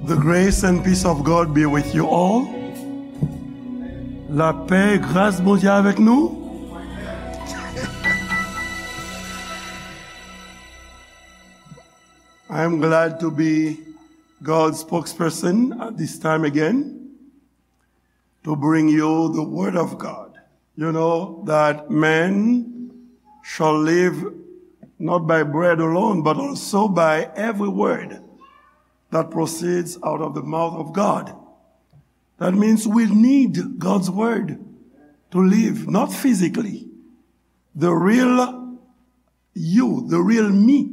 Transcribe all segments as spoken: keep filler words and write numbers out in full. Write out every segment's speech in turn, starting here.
The grace and peace of God be with you all. Lapè e gras Bondye avèk nou. I am glad to be God's spokesperson at this time again to bring you the word of God. You know that man shall live not by bread alone, but also by every word that proceeds out of the mouth of God. That means we need God's word to live, not physically. The real you, the real me,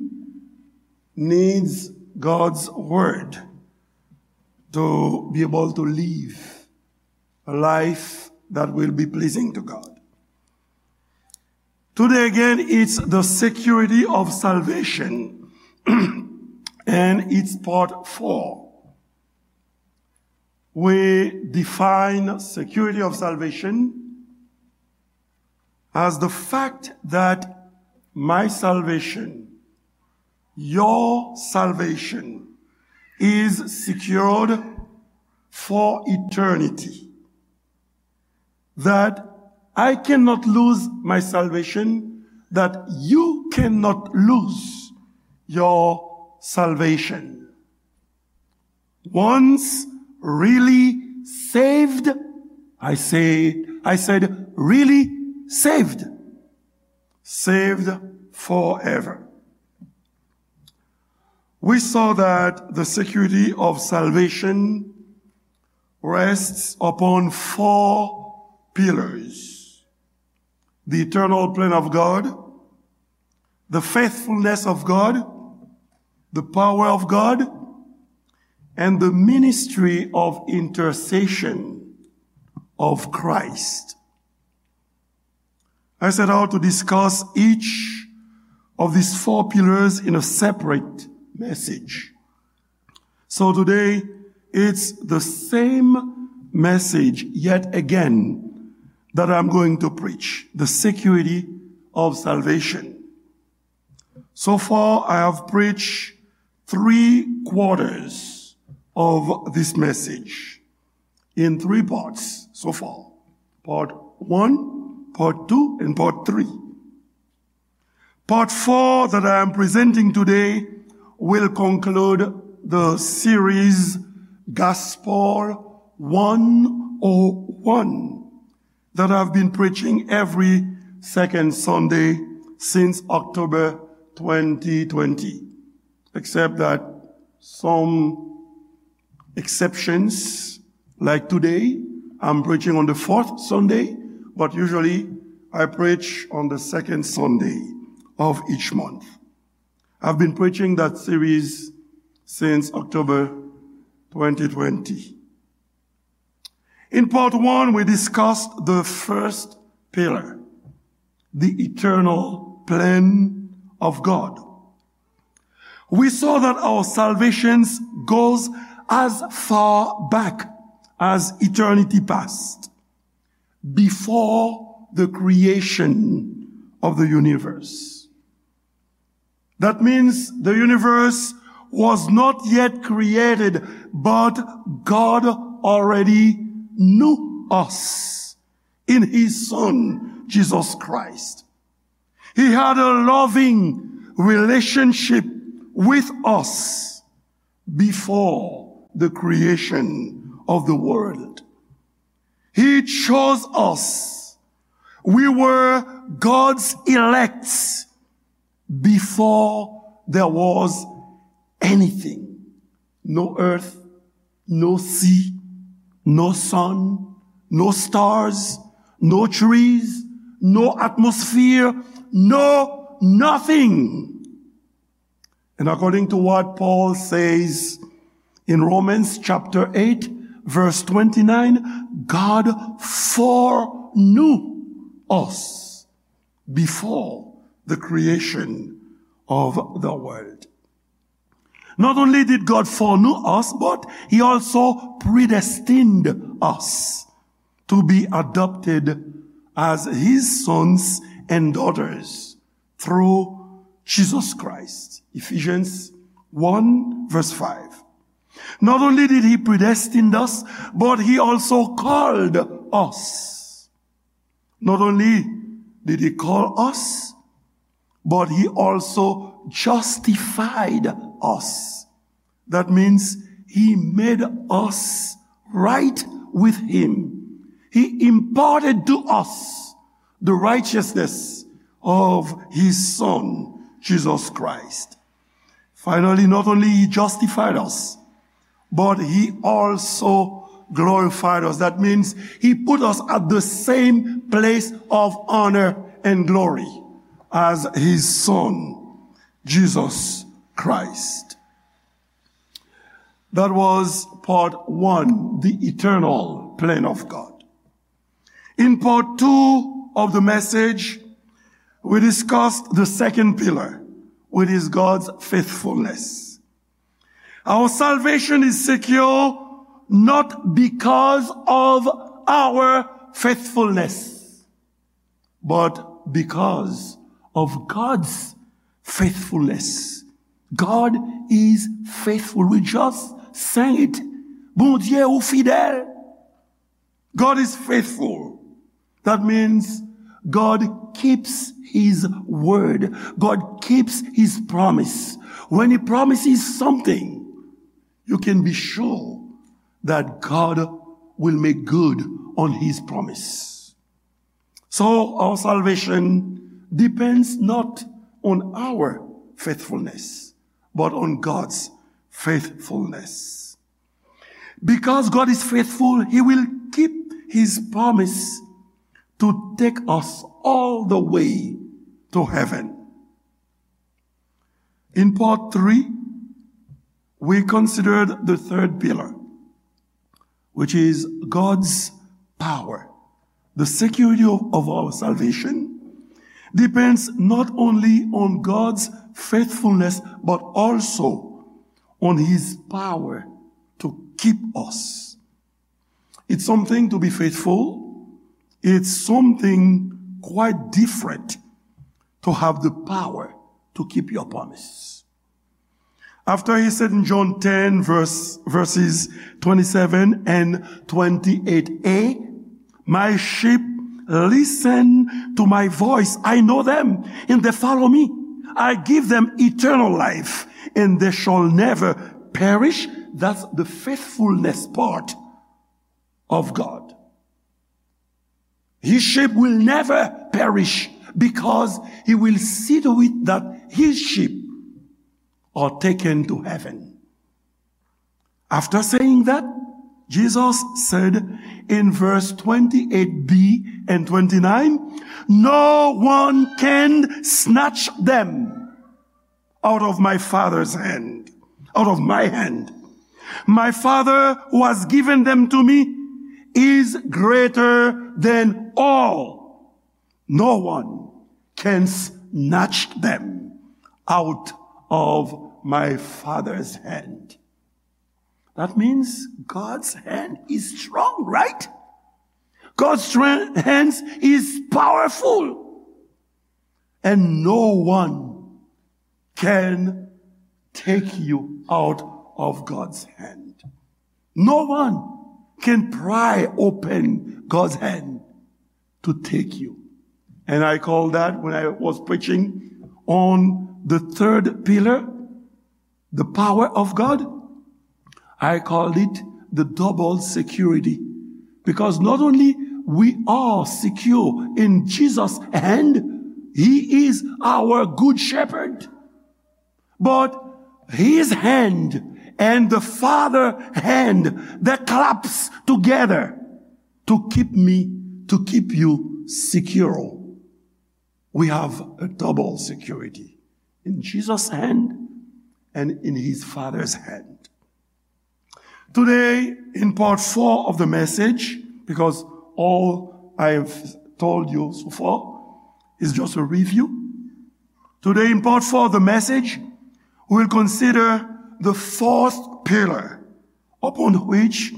needs God's word to be able to live a life that will be pleasing to God. Today again, it's the security of salvation, and it's part four. We define security of salvation as the fact that my salvation, your salvation, is secured for eternity. That I cannot lose my salvation, that you cannot lose your salvation. Once really saved, I say, I said, really saved, saved forever. We saw that the security of salvation rests upon four pillars: the eternal plan of God, the faithfulness of God, the power of God, and the ministry of intercession of Christ. I set out to discuss each of these four pillars in a separate message. So today, it's the same message yet again that I'm going to preach, the security of salvation. So far, I have preached three quarters of this message in three parts so far. Part one, part two, and part three. Part four that I am presenting today will conclude the series Gospel one oh one that I've been preaching every second Sunday since October twenty twenty. Except that some exceptions, like today, I'm preaching on the fourth Sunday, but usually I preach on the second Sunday of each month. I've been preaching that series since October twenty twenty. In part one, we discussed the first pillar, the eternal plan of God. We saw that our salvation goes as far back as eternity past, before the creation of the universe. That means the universe was not yet created, but God already knew us in His Son, Jesus Christ. He had a loving relationship with us before the creation of the world. He chose us. We were God's elect before there was anything. No earth, no sea, no sun, no stars, no trees, no atmosphere, no nothing. And according to what Paul says in Romans chapter eight, verse twenty-nine, God foreknew us before the creation of the world. Not only did God foreknew us, but He also predestined us to be adopted as His sons and daughters through Jesus Christ. Ephesians one, verse five. Not only did he predestine us, but he also called us. Not only did he call us, but he also justified us. That means he made us right with him. He imparted to us the righteousness of his Son, Jesus Christ. Finally, not only he justified us, but he also glorified us. That means he put us at the same place of honor and glory as his Son, Jesus Christ. That was part one, the eternal plan of God. In part two of the message, we discussed the second pillar, which is God's faithfulness. Our salvation is secure not because of our faithfulness, but because of God's faithfulness. God is faithful. We just sang it. Bondye ou fidèl. God is faithful. That means God keeps his word. God keeps his promise. When he promises something, you can be sure that God will make good on his promise. So our salvation depends not on our faithfulness, but on God's faithfulness. Because God is faithful, he will keep his promise to take us all the way to heaven. In part three, we considered the third pillar, which is God's power. The security of, of our salvation depends not only on God's faithfulness, but also on his power to keep us. It's something to be faithful. It's something quite different to have the power to keep your promise. After he said in John ten, verse, verses twenty-seven and twenty-eight A, "My sheep listen to my voice. I know them, and they follow me. I give them eternal life, and they shall never perish." That's the faithfulness part of God. His sheep will never perish because he will see to it that his sheep are taken to heaven. After saying that, Jesus said in verse twenty-eight B and twenty-nine, "No one can snatch them out of my Father's hand, out of my hand. My Father who has given them to me is greater than all. No one can snatch them out of my Father's hand." That means God's hand is strong, right? God's strength, hands is powerful. And no one can take you out of God's hand. No one can pry open God's hand to take you. And I call that, when I was preaching on the third pillar, the power of God, I called it the double security. Because not only we are secure in Jesus' hand, he is our good shepherd, but his hand and the Father hand that claps together to keep me, to keep you secure. We have a double security in Jesus' hand and in his Father's hand. Today, in part four of the message, because all I have told you so far is just a review. Today, in part four of the message, we will consider the fourth pillar upon which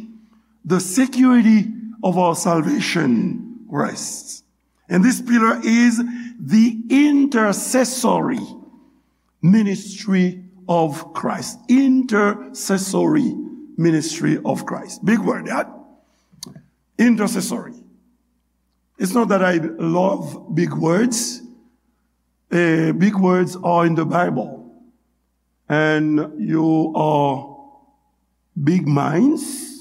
the security of our salvation rests. And this pillar is the intercessory ministry of Christ. Intercessory ministry of Christ. Big word, that intercessory. It's not that I love big words. Eh, big words are in the Bible. And you are big minds.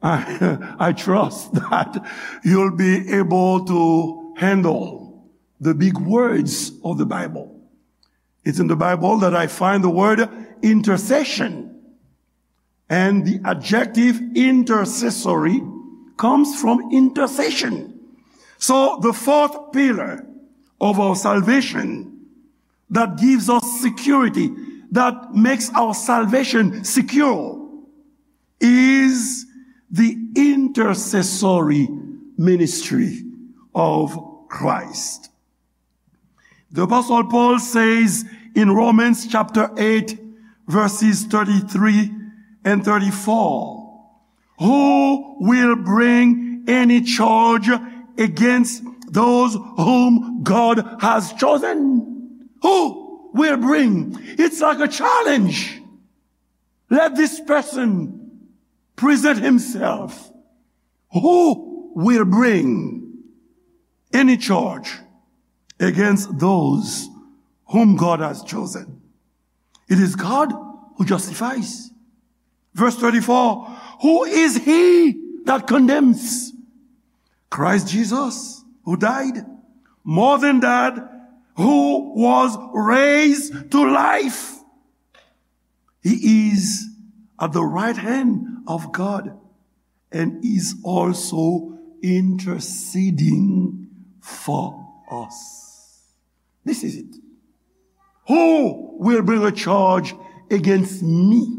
I, I trust that you'll be able to handle the big words of the Bible. It's in the Bible that I find the word intercession. And the adjective intercessory comes from intercession. So the fourth pillar of our salvation that gives us security, that makes our salvation secure, is the intercessory ministry of Christ. The Apostle Paul says in Romans chapter eight, verses thirty-three and thirty-four, "Who will bring any charge against those whom God has chosen?" Who will bring? It's like a challenge. Let this person present himself. Who will bring any charge against those whom God has chosen? It is God who justifies. Verse thirty-four, "Who is he that condemns?" Christ Jesus, who died. More than that, who was raised to life. He is at the right hand of God and is also interceding for us. This is it. Who will bring a charge against me?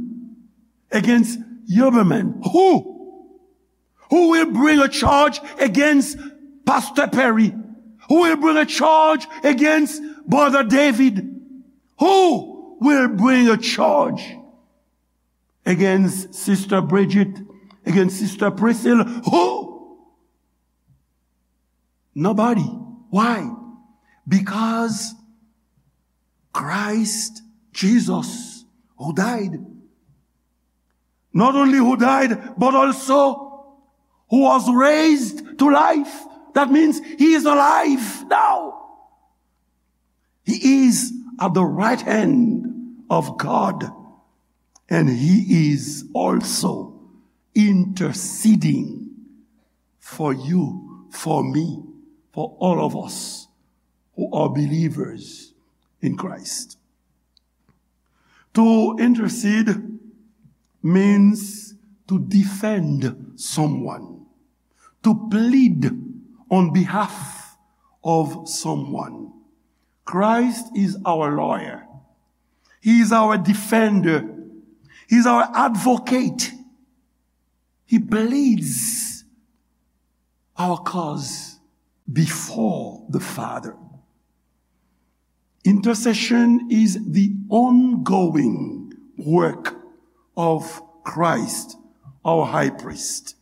Against Huberman? Who? Who will bring a charge against Pastor Perry? Who will bring a charge against Brother David? Who will bring a charge against Sister Bridget, against Sister Priscilla? Who? Nobody. Why? Because Christ Jesus, who died, not only who died, but also who was raised to life. That means he is alive now. He is at the right hand of God, and he is also interceding for you, for me, for all of us who are believers in Christ. To intercede means to defend someone, to plead on behalf of someone. Christ is our lawyer. He is our defender. He is our advocate. He pleads our cause before the Father. Intercession is the ongoing work of Christ, our high priest.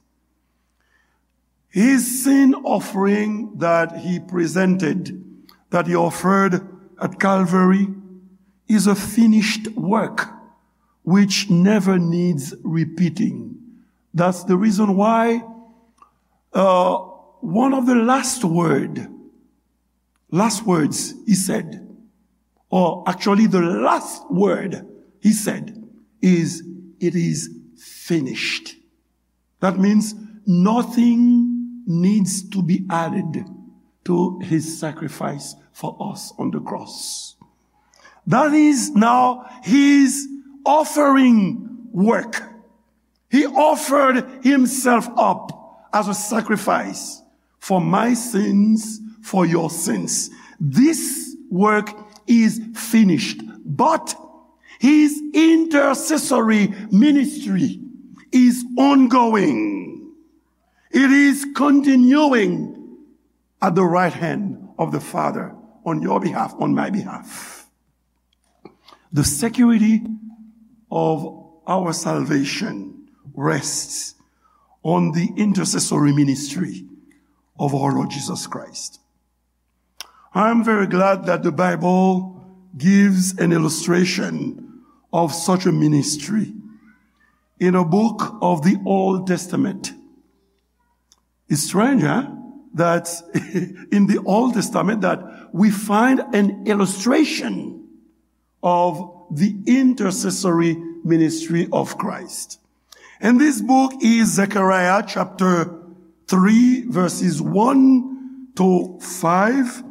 His sin offering that he presented, that he offered at Calvary, is a finished work which never needs repeating. That's the reason why, uh, one of the last word, last words he said, or actually the last word he said is, "It is finished." That means nothing needs to be added to his sacrifice for us on the cross. That is now his offering work. He offered himself up as a sacrifice for my sins, for your sins. This work is finished, but his intercessory ministry is ongoing. It is continuing at the right hand of the Father on your behalf, on my behalf. The security of our salvation rests on the intercessory ministry of our Lord Jesus Christ. I am very glad that the Bible gives an illustration of such a ministry. in a book of the Old Testament. It's strange, huh? That in the Old Testament that we find an illustration of the intercessory ministry of Christ. And this book is Zechariah chapter three, verses one to five.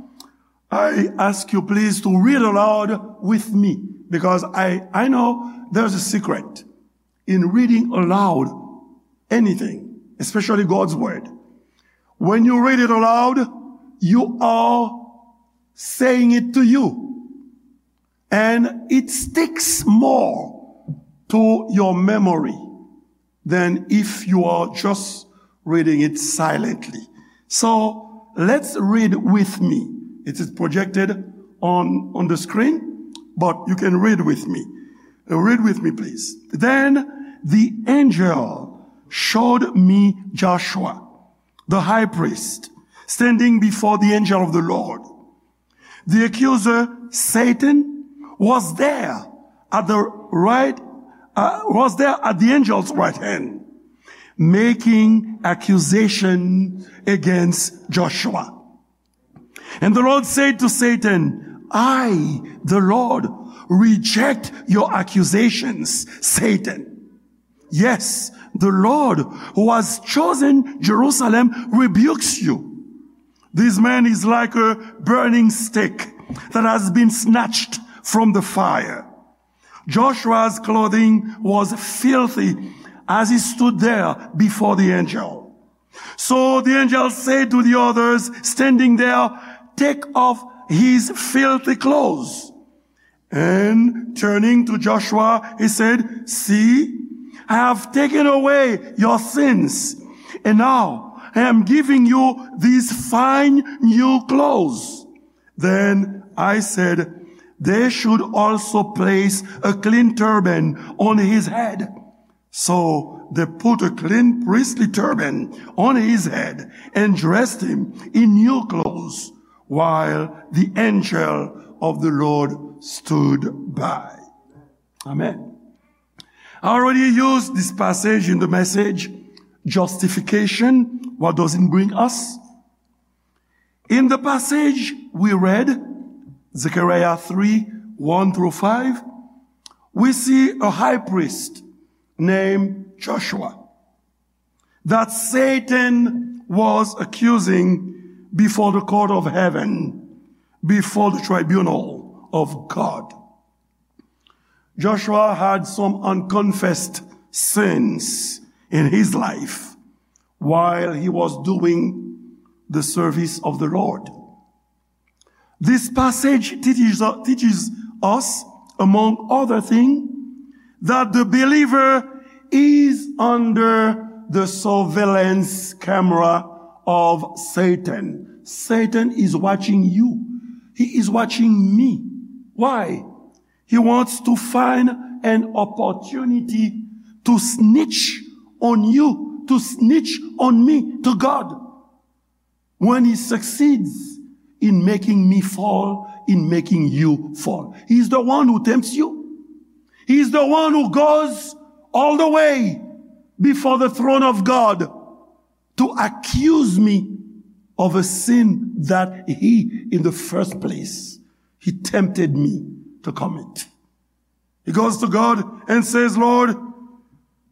I ask you please to read aloud with me, because I, I know there's a secret in reading aloud anything, especially God's word. When you read it aloud, you are saying it to you, and it sticks more to your memory than if you are just reading it silently. So let's read with me. It is projected on, on the screen, but you can read with me. Uh, read with me, please. Then the angel showed me Joshua, the high priest, standing before the angel of the Lord. The accuser, Satan, was there at the right, uh, was there at the angel's right hand, making accusation against Joshua. And the Lord said to Satan, "I, the Lord, reject your accusations, Satan. Yes, the Lord who has chosen Jerusalem rebukes you." This man is like a burning stick that has been snatched from the fire. Joshua's clothing was filthy as he stood there before the angel. So the angel said to the others standing there, "Take off his filthy clothes." And turning to Joshua, he said, "See, I have taken away your sins, and now I am giving you these fine new clothes." Then I said, "They should also place a clean turban on his head." So they put a clean priestly turban on his head and dressed him in new clothes, while the angel of the Lord stood by. Amen. I already used this passage in the message, Justification, What Does It Bring Us? In the passage we read, Zechariah three, one through five, we see a high priest named Joshua that Satan was accusing before the court of heaven, before the tribunal of God. Joshua had some unconfessed sins in his life while he was doing the service of the Lord. This passage teaches, teaches us, among other things, that the believer is under the surveillance camera of Satan. Satan is watching you. He is watching me. Why? He wants to find an opportunity to snitch on you, to snitch on me, to God. When he succeeds in making me fall, in making you fall. He's the one who tempts you. He's the one who goes all the way before the throne of God to accuse me of a sin that he, in the first place, he tempted me to commit. He goes to God and says, "Lord,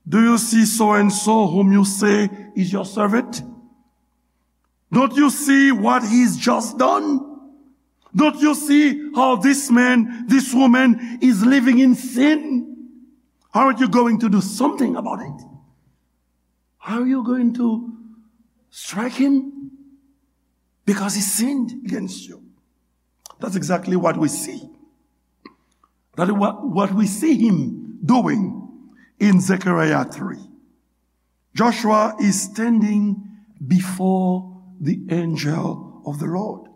do you see so and so whom you say is your servant? Don't you see what he's just done? Don't you see how this man, this woman is living in sin? Aren't you going to do something about it? Are you going to strike him? Because he sinned against you." That's exactly what we see. That is what, what we see him doing in Zechariah three. Joshua is standing before the angel of the Lord.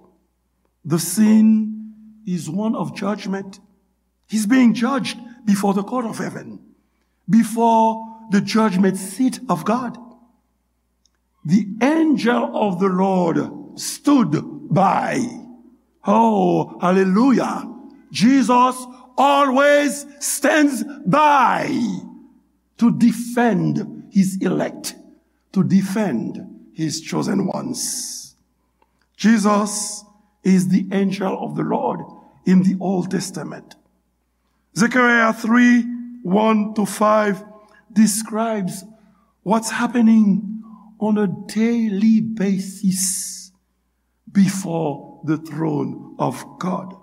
The scene is one of judgment. He's being judged before the court of heaven, before the judgment seat of God. The angel of the Lord stood by. Oh, hallelujah. Jesus always stands by. to defend his elect, to defend his chosen ones. Jesus is the angel of the Lord in the Old Testament. Zechariah three, one to five describes what's happening on a daily basis before the throne of God.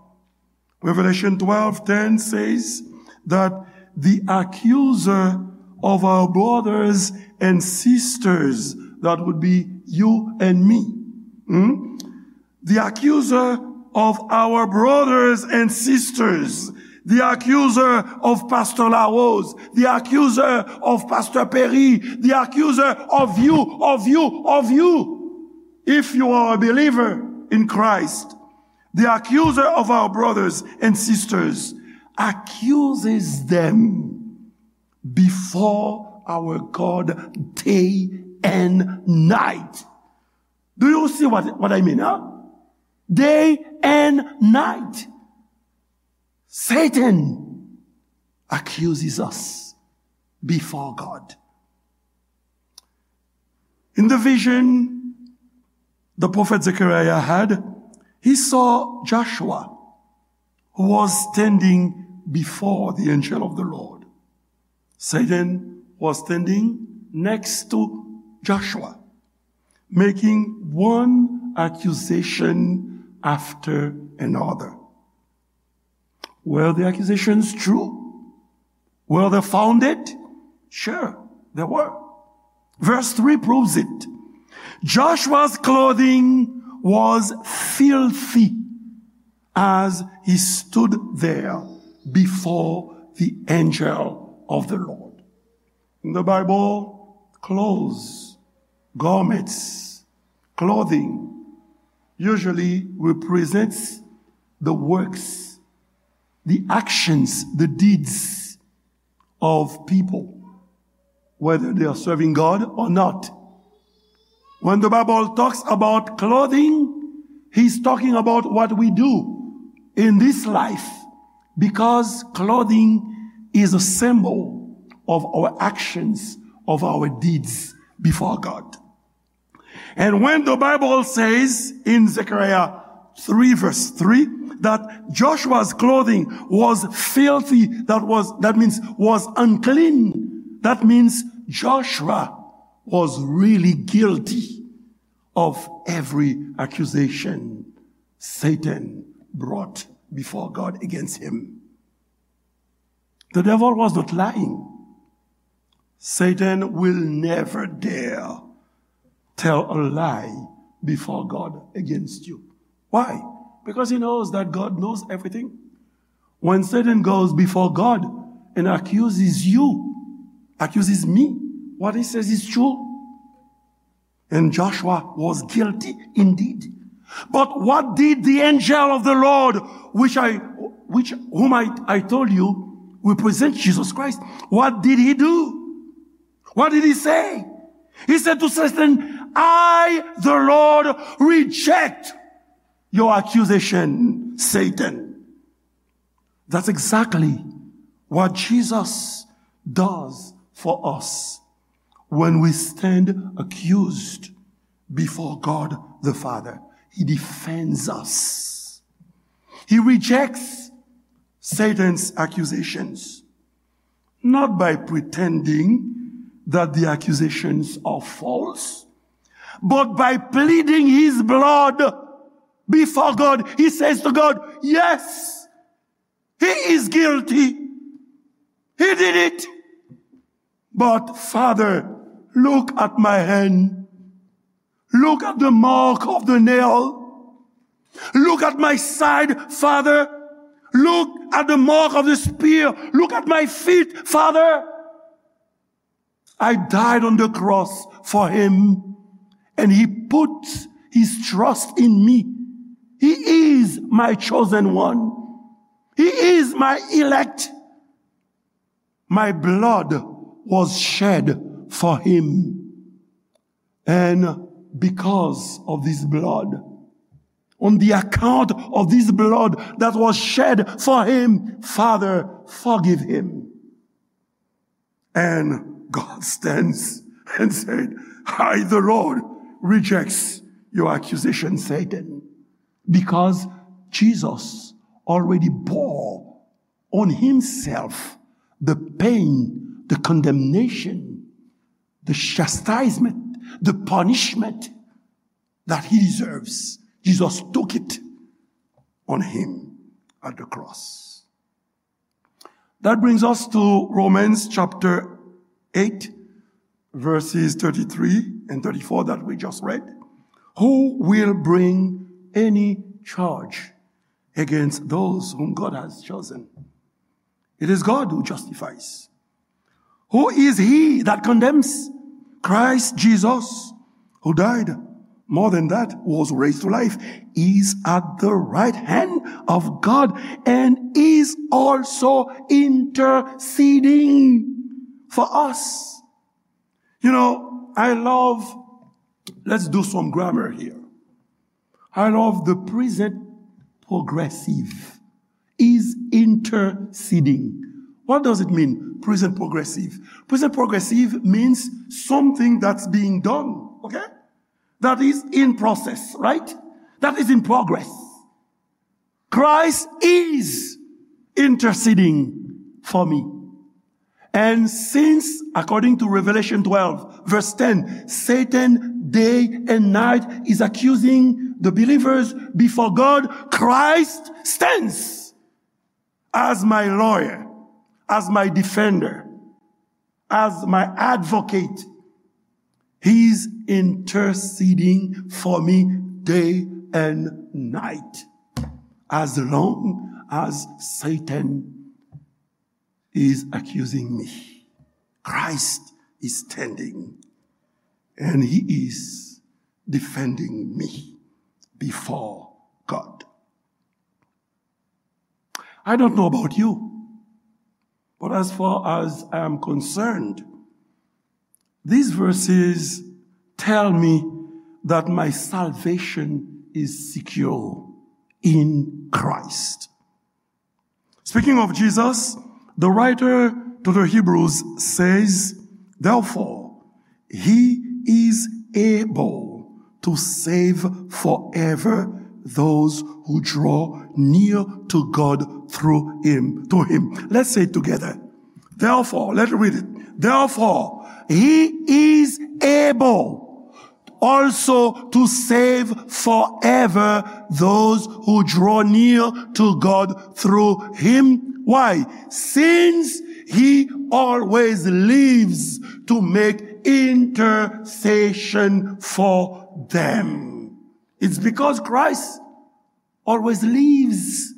Revelation twelve ten says that the accuser of our brothers and sisters, that would be you and me, hmm? The accuser of our brothers and sisters, the accuser of Pastor Larose, the accuser of Pastor Perry, the accuser of you, of you, of you. If you are a believer in Christ, the accuser of our brothers and sisters accuses them before our God day and night. Do you see what, what I mean, huh? Day and night. Satan accuses us before God. In the vision the prophet Zechariah had, he saw Joshua, who was standing before the angel of the Lord. Satan was standing next to Joshua, making one accusation after another. Were the accusations true? Were they founded? Sure, they were. Verse three proves it. Joshua's clothing was filthy as he stood there before the angel of the Lord. In the Bible, clothes, garments, clothing usually represents the works, the actions, the deeds of people, whether they are serving God or not. When the Bible talks about clothing, he's talking about what we do in this life, because clothing is a symbol of our actions, of our deeds before God. And when the Bible says in Zechariah three verse three that Joshua's clothing was filthy, that was, that means was unclean, that means Joshua was really guilty of every accusation Satan brought before God against him. The devil was not lying. Satan will never dare tell a lie before God against you. Why? Because he knows that God knows everything. When Satan goes before God and accuses you, accuses me, what he says is true. And Joshua was guilty indeed. But what did the angel of the Lord, which I, which, whom I, I told you represents Jesus Christ, what did he do? What did he say? He said to Satan, "I, the Lord, reject your accusation, Satan." That's exactly what Jesus does for us when we stand accused before God the Father. He defends us. He rejects Satan's accusations, not by pretending that the accusations are false, but by pleading his blood before God. He says to God, "Yes, he is guilty. He did it. But Father, look at my hand. Look at the mark of the nail. Look at my side, Father. Look at the mark of the spear. Look at my feet, Father. I died on the cross for him, and he put his trust in me. He is my chosen one. He is my elect. My blood was shed for him. And because of this blood, on the account of this blood that was shed for him, Father, forgive him." And God stands and said, "I, the Lord, rejects your accusation, Satan." Because Jesus already bore on himself the pain, the condemnation, the chastisement, the punishment that he deserves. Jesus took it on him at the cross. That brings us to Romans chapter eight, verses thirty-three and thirty-four that we just read. "Who will bring any charge against those whom God has chosen? It is God who justifies. Who is he that condemns? Christ Jesus, who died, more than that, was raised to life, is at the right hand of God and is also interceding for us." You know, I love, let's do some grammar here. I love the present progressive is interceding. What does it mean, present progressive? Present progressive means something that's being done, okay? That is in process, right? That is in progress. Christ is interceding for me. And since, according to Revelation twelve, verse ten, Satan day and night is accusing the believers before God, Christ stands as my lawyer, as my defender, as my advocate. He's interceding for me day and night. As long as Satan is accusing me, Christ is standing and he is defending me before God. I don't know about you, but as far as I am concerned, these verses tell me that my salvation is secure in Christ. Speaking of Jesus, the writer to the Hebrews says, "Therefore, he is able to save forever those who draw near to God through him, to him." Let's say it together. Therefore, let's read it. "Therefore, he is able also to save forever those who draw near to God through him." Why? "Since he always lives to make intercession for them." It's because Christ always lives.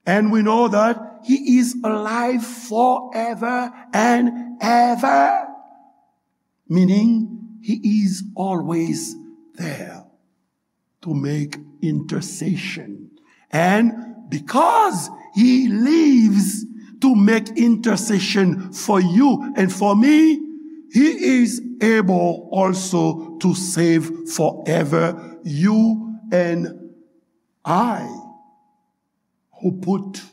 And we know that he is alive forever and ever. Meaning, he is always there to make intercession. And because he lives to make intercession for you and for me, he is able also to save forever you and I, who put,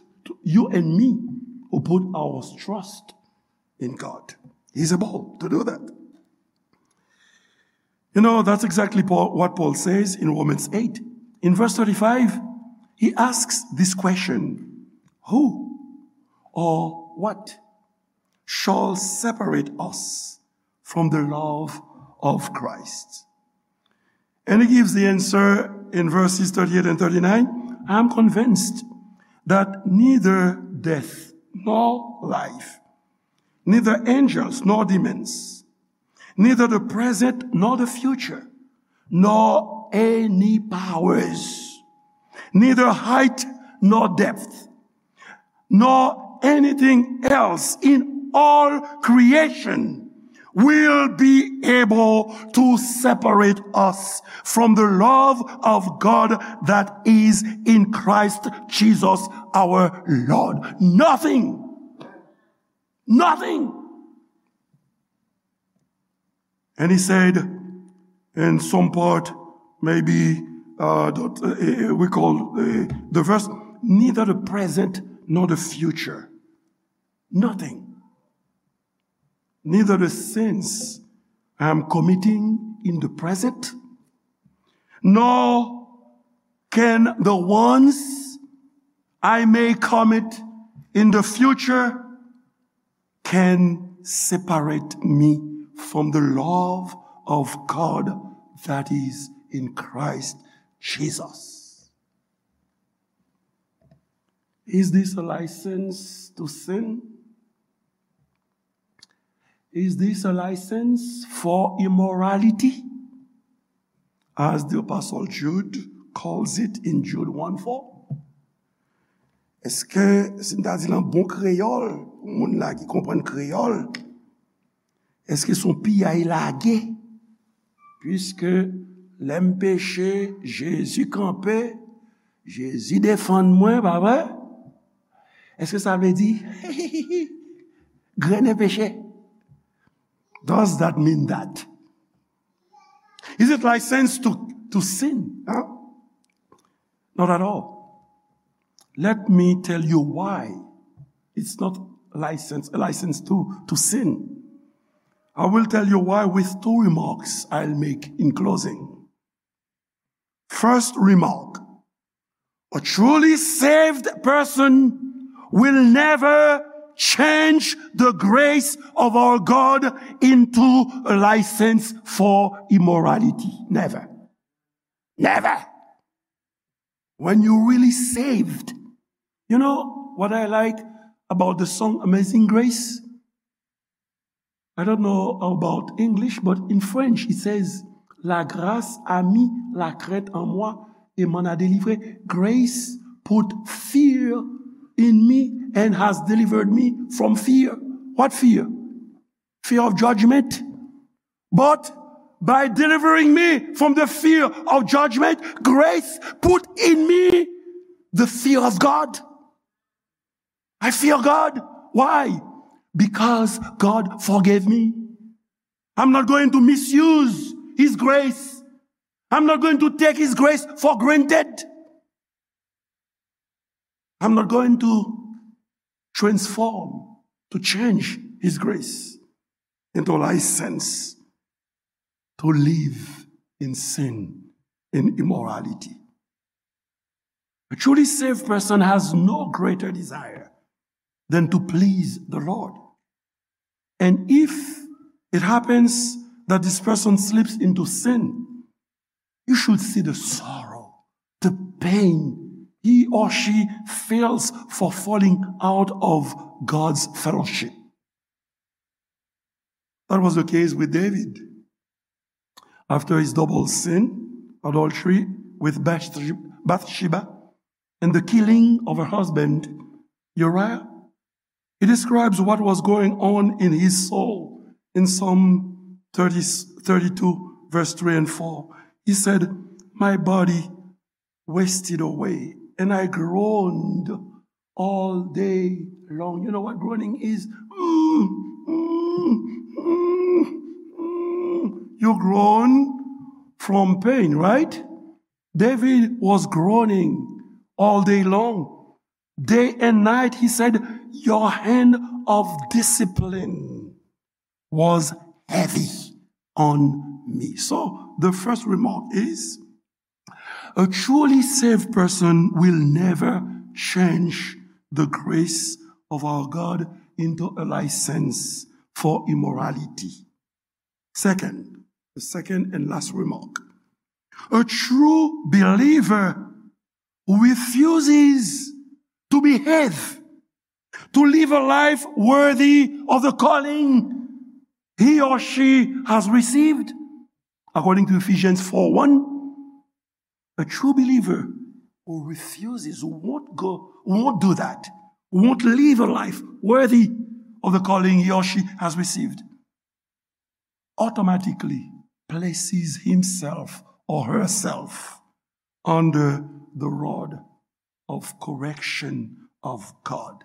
you and me, who put our trust in God. He's able to do that. You know, that's exactly Paul, what Paul says in Romans eight. In verse thirty-five, he asks this question, "Who or what shall separate us from the love of Christ?" And he gives the answer in verses thirty-eight and thirty-nine. "I am convinced that neither death nor life, neither angels nor demons, neither the present nor the future, nor any powers, neither height nor depth, nor anything else in all creation will be able to separate us from the love of God that is in Christ Jesus our Lord." Nothing. Nothing. And he said, in some part, maybe, uh, that, uh, we call, uh, the verse, "Neither the present nor the future." Nothing. neither the sins I am committing in the present, nor can the ones I may commit in the future can separate me from the love of God that is in Christ Jesus. Is this a license to sin? Is this a license for immorality? As the Apostle Jude calls it in Jude one four. Èske, si m ta di l an bon kreyòl, pou moun la ki konprann kreyòl, èske se yon piyay lage? Piske lè m peche, Jezi kanpe, Jezi defann mwen, pa vre? Èske sa vle di, grennen peche? Does that mean that? Is it license to, to sin? Huh? Not at all. Let me tell you why it's not license, a license to, to sin. I will tell you why with two remarks I'll make in closing. First remark, a truly saved person will never change the grace of our God into a license for immorality. Never. Never. When you really saved, you know what I like about the song Amazing Grace? I don't know about English, but in French it says, "La grâce a mis la crainte en moi et m'en a délivré." Grace put fear in me and has delivered me from fear. What fear? Fear of judgment. But by delivering me from the fear of judgment, grace put in me the fear of God. I fear God. Why? Because God forgave me. I'm not going to misuse His grace. I'm not going to take His grace for granted. I'm not going to transform, to change His grace into a license to live in sin, in immorality. A truly saved person has no greater desire than to please the Lord. And if it happens that this person slips into sin, you should see the sorrow, the pain he or she feels for falling out of God's fellowship. That was the case with David. After his double sin, adultery with Bathsheba, Bathsheba, and the killing of her husband, Uriah, he describes what was going on in his soul in Psalm thirty, thirty-two, verse three and four. He said, "My body wasted away, and I groaned all day long." You know what groaning is? Mm, mm, mm, mm. You groan from pain, right? David was groaning all day long. Day and night, he said, "Your hand of discipline was heavy on me." So, the first remark is, a truly saved person will never change the grace of our God into a license for immorality. Second, the second and last remark. A true believer refuses to behave, to live a life worthy of the calling he or she has received. According to Ephesians four one, a true believer who refuses, who won't go, who won't do that, who won't live a life worthy of the calling he or she has received, automatically places himself or herself under the rod of correction of God.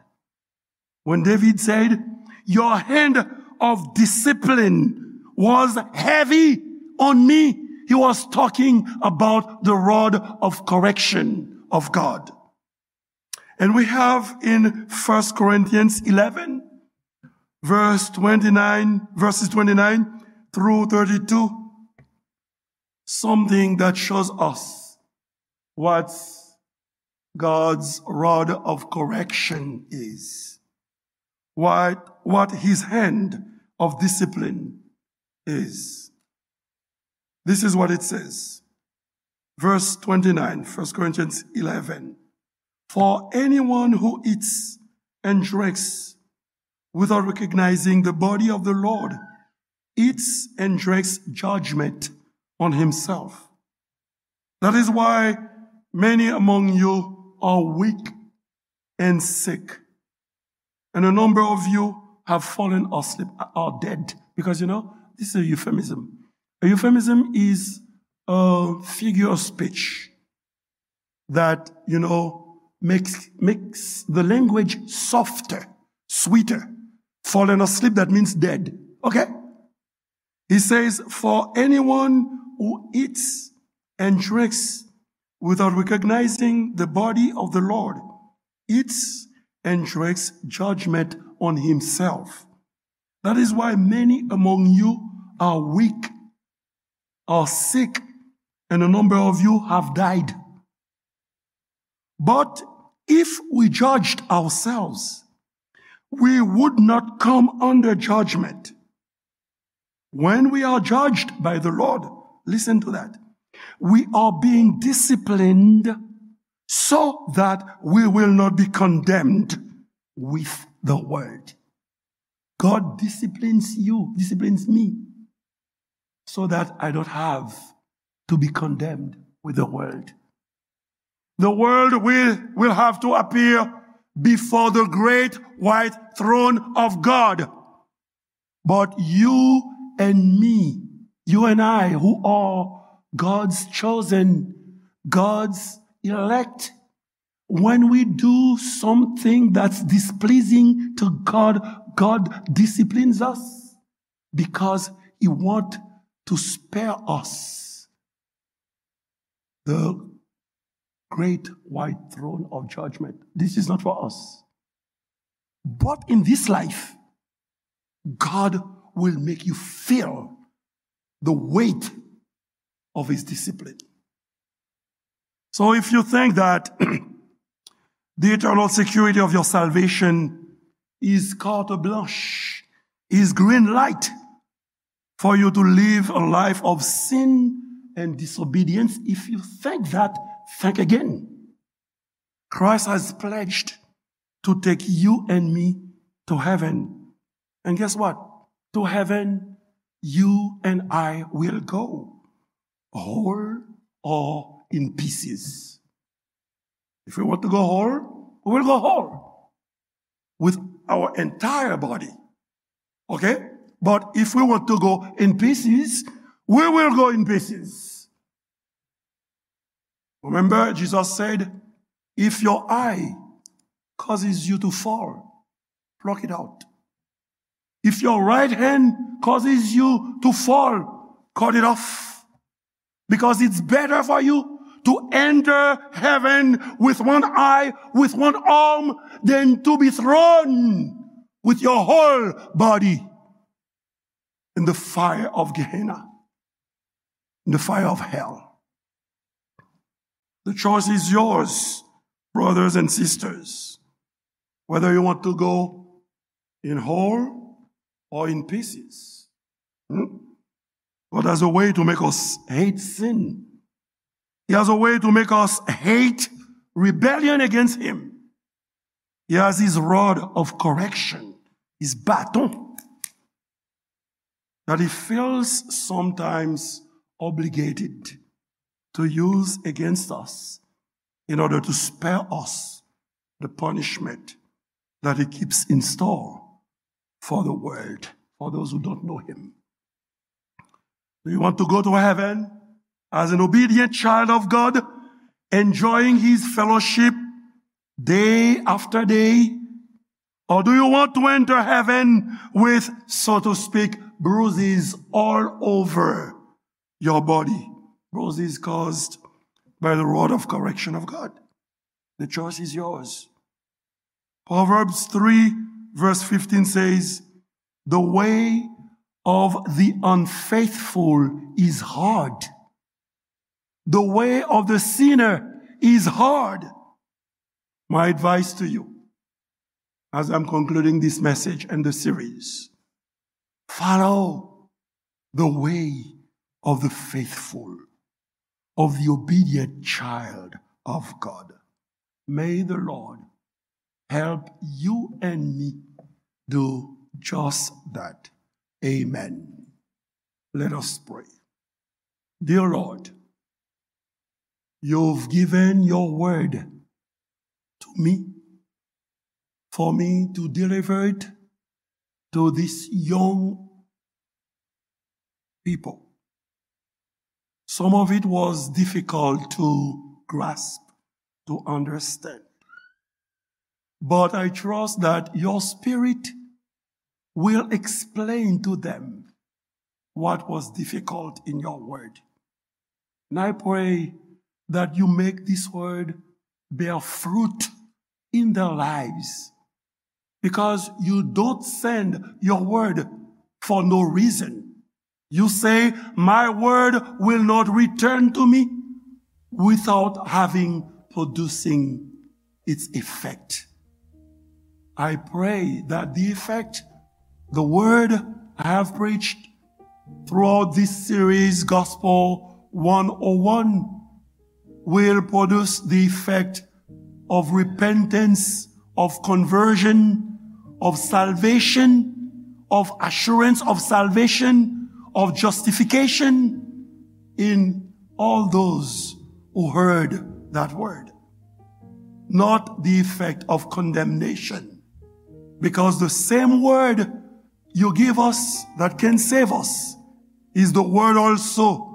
When David said, "Your hand of discipline was heavy on me," he was talking about the rod of correction of God. And we have in First Corinthians eleven, verse twenty-nine, verses twenty-nine through thirty-two, something that shows us what God's rod of correction is, what, what his hand of discipline is. This is what it says. Verse twenty-nine, First Corinthians eleven. For anyone who eats and drinks without recognizing the body of the Lord eats and drinks judgment on himself. That is why many among you are weak and sick, and a number of you have fallen asleep, are dead. Because, you know, this is a euphemism. A euphemism is a figure of speech that, you know, makes, makes the language softer, sweeter. Fallen asleep, that means dead. Okay? He says, for anyone who eats and drinks without recognizing the body of the Lord eats and drinks judgment on himself. That is why many among you are weak, are sick, and a number of you have died. But if we judged ourselves, we would not come under judgment. When we are judged by the Lord, listen to that, we are being disciplined so that we will not be condemned with the world. God disciplines you, disciplines me, so that I don't have to be condemned with the world. The world will, will have to appear before the great white throne of God. But you and me, you and I, who are God's chosen, God's elect, when we do something that's displeasing to God, God disciplines us because he want to spare us the great white throne of judgment. This is not for us. But in this life, God will make you feel the weight of his discipline. So if you think that the eternal security of your salvation is carte blanche, is green light for you to live a life of sin and disobedience, if you think that, think again. Christ has pledged to take you and me to heaven. And guess what? To heaven, you and I will go, whole or in pieces. If we want to go whole, we will go whole with our entire body. Okay? But if we want to go in pieces, we will go in pieces. Remember, Jesus said, if your eye causes you to fall, pluck it out. If your right hand causes you to fall, cut it off. Because it's better for you to enter heaven with one eye, with one arm, than to be thrown with your whole body in the fire of Gehenna, in the fire of hell. The choice is yours, brothers and sisters, whether you want to go in whole or in pieces. Hmm? God has a way to make us hate sin. He has a way to make us hate rebellion against him. He has his rod of correction, his bâton, that he feels sometimes obligated to use against us in order to spare us the punishment that he keeps in store for the world, for those who don't know him. Do you want to go to heaven as an obedient child of God, enjoying his fellowship day after day? Or do you want to enter heaven with, so to speak, bruises all over your body? Bruises caused by the rod of correction of God. The choice is yours. Proverbs three verse fifteen says, The way of the unfaithful is hard. The way of the sinner is hard. My advice to you, as I'm concluding this message and the series, follow the way of the faithful, of the obedient child of God. May the Lord help you and me do just that. Amen. Let us pray. Dear Lord, you've given your word to me, for me to deliver it to this young people. Some of it was difficult to grasp, to understand. But I trust that your spirit will explain to them what was difficult in your word. And I pray that you make this word bear fruit in their lives, because you don't send your word for no reason. You say, "My word will not return to me without having producing its effect." I pray that the effect, the word I have preached throughout this series, Gospel one oh one, will produce the effect of repentance, of conversion, of salvation, of assurance of salvation, of justification in all those who heard that word. Not the effect of condemnation, because the same word you give us that can save us is the word also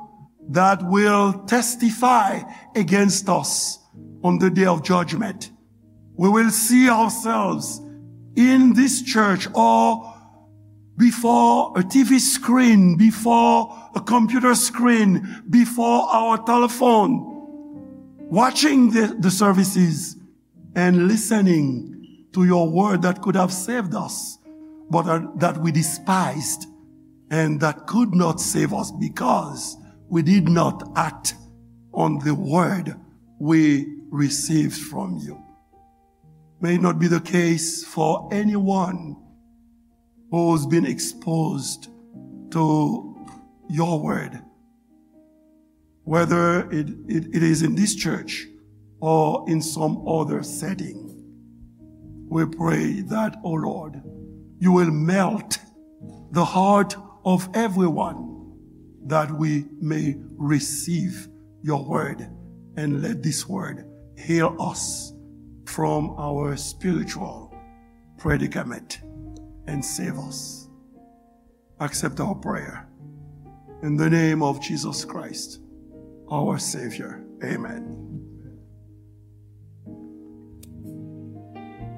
that will testify against us on the day of judgment. We will see ourselves in this church or before a T V screen, before a computer screen, before our telephone, watching the, the services and listening to your word that could have saved us, but uh, that we despised and that could not save us because we did not act on the word we received from you. May it not be the case for anyone who's been exposed to your word, whether it, it, it is in this church or in some other setting. We pray that, O Lord, you will melt the heart of everyone that we may receive your word, and let this word heal us from our spiritual predicament and save us. Accept our prayer. In the name of Jesus Christ, our Savior. Amen.